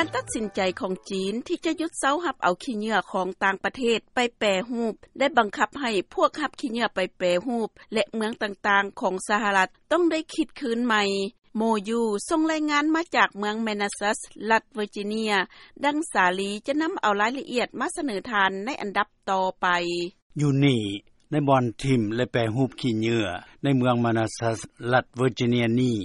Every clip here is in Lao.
ການຕັດສິນໃຈຂອງຈີນ ທີ່ຈະຢຸດເຊົາຮັບເອົາຂີ້ເຫຍື້ອ ຂອງຕ່າງປະເທດໄປແປຮູບ ໄດ້ບັງຄັບໃຫ້ພວກຮັບຂີ້ເຫຍື້ອໄປແປຮູບ ແລະເມືອງຕ່າງໆຂອງສະຫະລັດ ຕ້ອງໄດ້ຄິດຄືນໃໝ່. ໂມຢູ ສົ່ງລາຍງານມາຈາກເມືອງ Manassas ລັດ Virginia. ດັ່ງສາລີຈະນຳເອົາລາຍລະອຽດມາສະເໜີທ່ານໃນອັນດັບຕໍ່ໄປ. ຢູ່ນີ້ ໃນບ່ອນຖິ້ມ ແລະແປຮູບຂີ້ເຫຍື້ອ ໃນເມືອງ Manassas ລັດ Virginia ນີ້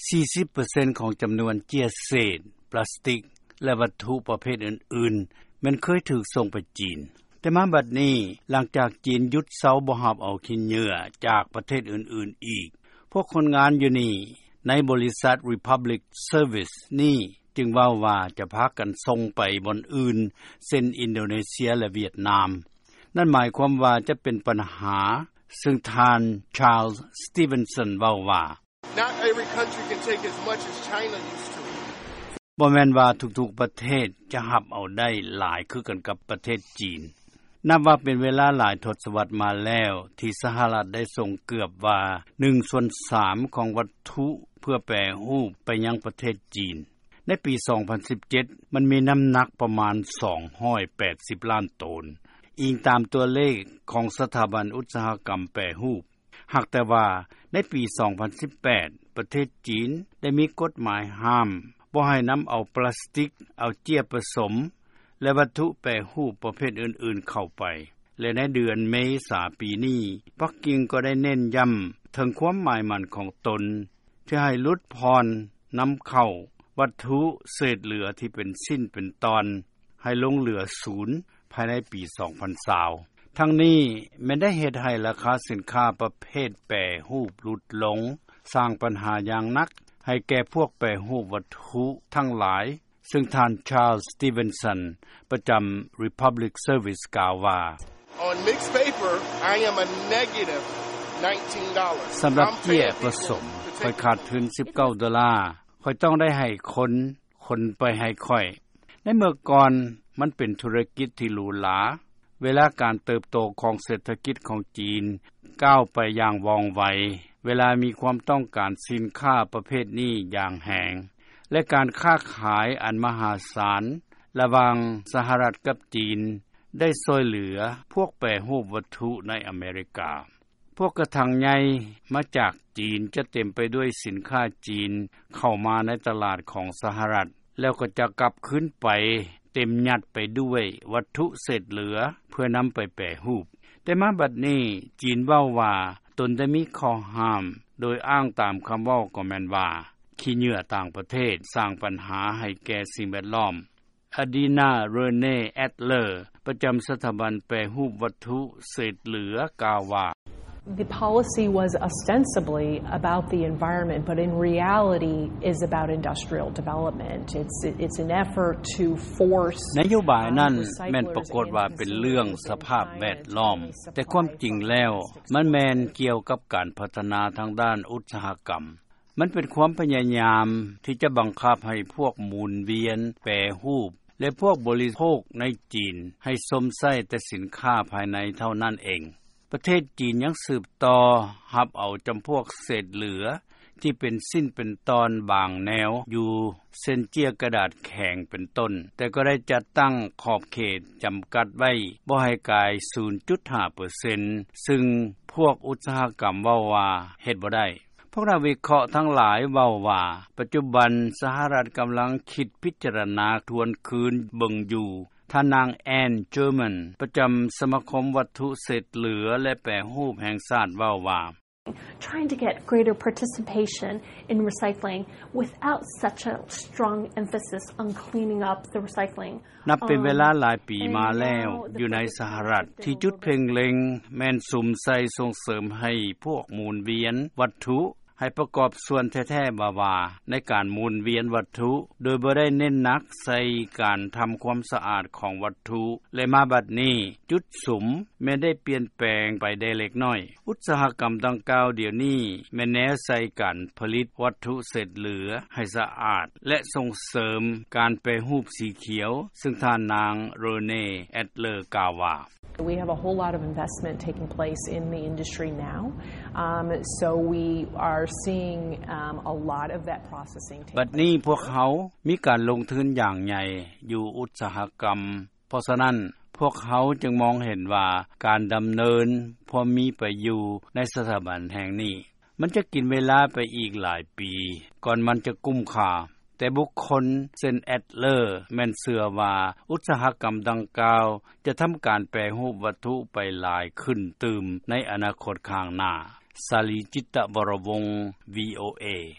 ສີ່ສິບເປີເຊັນຂອງຈຳນວນເຈ້ຍເສດ ປລາສຕິກ ແລະວັດຖຸປະເພດອື່ນໆ ແມ່ນເຄີຍຖືກສົ່ງໄປຈີນ. ແຕ່ມາບັດນີ້ ຫຼັງຈາກຈີນຢຸດເຊົາບໍ່ຮັບເອົາຂີ້ເຫຍື້ອ ຈາກປະເທດອື່ນໆອີກ ພວກຄົນງານຢູ່ນີ້ ໃນບໍລິສັດ Republic Service ນີ້ ຈຶ່ງເວົ້າວ່າຈະພາກັນສົ່ງໄປບ່ອນອື່ນ ເຊັ່ນ ອິນໂດເນເຊຍ ແລະຫວຽດນາມ. ນັ້ນໝາຍຄວາມວ່າຈະເປັນບັນຫາ ຊຶ່ງທ່ານ Charles Stevenson ເວົ້າວ່າ Not every country can take as much as China used to. ບໍ່ແມ່ນວ່າທຸກໆປະເທດຈະຮັບເອົາໄດ້ຫຼາຍຄືກັນກັບປະເທດຈີນ. ນັບວ່າເປັນເວລາຫຼາຍທົດສະວັດມາແລ້ວ ທີ່ສະຫະລັດໄດ້ສົ່ງເກືອບວ່າໜຶ່ງສ່ວນສາມຂອງວັດຖຸເພື່ອແປຮູບໄປຍັງປະເທດຈີນ. ໃນປີສອງພັນສິບເຈັດ ມັນມີນ້ຳໜັກປະມານສອງຮ້ອຍແປດສິບລ້ານໂຕນ, ອີງຕາມຕົວເລກຂອງສະຖາບັນອຸດສາຫະກຳແປຮູບ. ຫາກແຕ່ວ່າໃນປີສອງພັນສິບແປດ ປະເທດຈີນໄດ້ມີກົດໝາຍຫ້າມບໍ່ໃຫ້ນຳເອົາປລາສຕິກ, ເອົາເຈ້ຍປະສົມ ແລະວັດຖຸແປຮູບປະເພດອື່ນໆເຂົ້າໄປ ແລະໃນເດືອນເມສາປີນີ້ ປັກກິ່ງກໍໄດ້ເນັ້ນຢ້ຳເຖິງຄວາມໝາຍໝັ້ນຂອງຕົນ ທີ່ໃຫ້ຫຼຸດຜ່ອນນຳເຂົ້າວັດຖຸເສດເຫຼືອທີ່ເປັນຊິ້ນເປັນຕອນ ໃຫ້ລົງເຫຼືອສູນພາຍໃນປີສອງພັນຊາວ. ທັງນີ້ແມ່ນໄດ້ເຮັດໃຫ້ລາຄາສິນຄ້າປະເພດແປຮູບຫຼຸດລົງ, ສ້າງບັນຫາຢ່າງໜັກໃຫ້ແກ່ພວກແປຮູບວັດຖຸທັງຫຼາຍ, ຊຶ່ງທ່ານ Charles Stevenson ປະຈຳ Republic Service ກ່າວວ່າ On mixed paper, I am a negative nineteen dollars. ສຳລັບເຈ້ຍປະສົມ, ຂ້ອຍຂາດທຶນສິບເກົ້າໂດລາ. ຂ້ອຍຕ້ອງໄດ້ໃຫ້ຄົນ, ຄົນໄປໃຫ້ຂ້ອຍ. ໃນເມື່ອກ່ອນ, ມັນເປັນທຸລະກິດທີ່ຫຼູຫຼາ. ເວລາການເຕີບໂຕຂອງເສດຖະກິດຂອງຈີນກ້າວໄປຢ່າງວ່ອງໄວ, ເວລາມີຄວາມຕ້ອງການສິນຄ້າປະເພດນີ້ຢ່າງແຮງ, ແລະ ການຄ້າຂາຍອັນມະຫາສານລະຫວ່າງສະຫະລັດກັບຈີນ ໄດ້ຊ່ວຍເຫຼືອພວກແປຮູບວັດຖຸໃນອາເມລິກາ. ພວກກະຖັງໃຫຍ່ມາຈາກຈີນຈະເຕັມໄປດ້ວຍສິນຄ້າຈີນເຂົ້າມາໃນຕະຫຼາດຂອງສະຫະລັດ, ແລ້ວກໍຈະກັບຄືນໄປເຕັມຍັດໄປດ້ວຍວັດຖຸເສດເຫຼືອເພື່ອນຳໄປແປຮູບ. ແຕ່ມາບັດນີ້, ຈີນເວົ້າວ່າຕົນໄດ້ມີຂໍ້ຫ້າມ, ໂດຍອ້າງຕາມຄຳເວົ້າກໍແມ່ນວ່າ ຂີ້ເຫຍື້ອຕ່າງປະເທດສ້າງບັນຫາໃຫ້ແກ່ສິ່ງແວດລ້ອມ. Adina Renée Adler ປະຈຳສະຖາບັນແປຮູບວັດຖຸເສດເຫຼືອກ່າວວ່າ The policy was ostensibly about the environment, but in reality is about industrial development. It's, it's an effort to force ນະໂຍບາຍນັ້ນແມ່ນປາກົດວ່າເປັນເລື່ອງສະພາບແວດລ້ອມ, ແຕ່ຄວາມຈິງແລ້ວມັນແມ່ນກ່ຽວກັບການພັດທະນາທາງດ້ານອຸດສາຫະກຳ. ມັນເປັນຄວາມພະຍາຍາມທີ່ຈະບັງຄັບໃຫ້ພວກໝູນວຽນແປຮູບ ແລະ ພວກບໍລິໂພກໃນຈີນໃຫ້ຊົມໃຊ້ແຕ່ສິນຄ້າພາຍໃນເທົ່ານັ້ນເອງ. ປະເທດຈີນຍັງສືບຕໍ່ຮັບເອົາຈຳພວກເສດເຫຼືອທີ່ເປັນຊິ້ນເປັນຕອນບາງແນວຢູ່ ເຊັ່ນ ເຈ້ຍກະດາດແຂງເປັນຕົ້ນ, ແຕ່ກໍໄດ້ຈັດຕັ້ງຂອບເຂດຈຳກັດໄວ້ບໍ່ໃຫ້ກາຍສູນຈຸດຫ້າເປີເຊັນ, ຊຶ່ງພວກອຸດສາຫະກຳເວົ້າວ່າເຮັດບໍ່ໄດ້. ພວກນັກວິເຄາະທັງຫຼາຍເວົ້າວ່າ ປັດຈຸບັນສະຫະລັດກຳລັງຄິດພິຈາລະນາທວນຄືນເບິ່ງຢູ່. ທ່ານນາງ Anne German ປະຈຳສະມາຄົມວັດຖຸເສດເຫຼືອ ແລະ ແປຮູບແຫ່ງຊາດເວົ້າວ່າ Trying to get greater participation in recycling without such a strong emphasis on cleaning up the recycling. ນັບເປັນເວລາຫຼາຍປີມາແລ້ວ ຢູ່ໃນສະຫະລັດ ທີ່ຈຸດເພັ່ງເລັງແມ່ນສຸມໃສ່ສົ່ງເສີມໃຫ້ພວກໝູນວຽນວັດຖຸ ໃຫ້ປະກອບສ່ວນແທ້ໆວ່າໆໃນການໝູນວຽນວັດຖຸ ໂດຍບໍ່ໄດ້ເນັ້ນໜັກໃສ່ການທຳຄວາມສະອາດຂອງວັດຖຸ ແລະ ມາບັດນີ້ ຈຸດສຸມແມ່ນໄດ້ປ່ຽນແປງໄປໄດ້ເລັກນ້ອຍ. ອຸດສາຫະກຳດັ່ງກ່າວດຽວນີ້ແມ່ນແນໃສ່ການຜະລິດວັດຖຸເສດເຫຼືອໃຫ້ສະອາດ ແລະ ສົ່ງເສີມການແປຮູບສີຂຽວ, ຊຶ່ງທ່ານນາງ Renée Adler ກ່າວວ່າ We have a whole lot of investment taking place in the industry now. Um, so we are ບັດນີ້ພວກເຮົາມີການລົງທຶນຢ່າງໃຫຍ່ຢູ່ອຸດສາຫະກຳ ເພາະສະນັ້ນ ພວກເຮົາຈຶ່ງມອງເຫັນວ່າ ການດຳເນີນຄວາມມີໄປຢູ່ໃນສະຖາບັນແຫ່ງນີ້ ມັນຈະກິນເວລາໄປອີກຫຼາຍປີ ກ່ອນມັນຈະກຸ້ມຄ່າ. ແຕ່ບຸກຄົນເຊັ່ນ Adler ແມ່ນເຊື່ອວ່າ ອຸດສາຫະກຳດັ່ງກ່າວ ຈະທຳການແປຮູບວັດຖຸໄປຫຼາຍຂຶ້ນຕື່ມໃນອະນາຄົດຂ້າງໜ້າ. ສາລີ ຈິດຕະວໍວົງ VOA.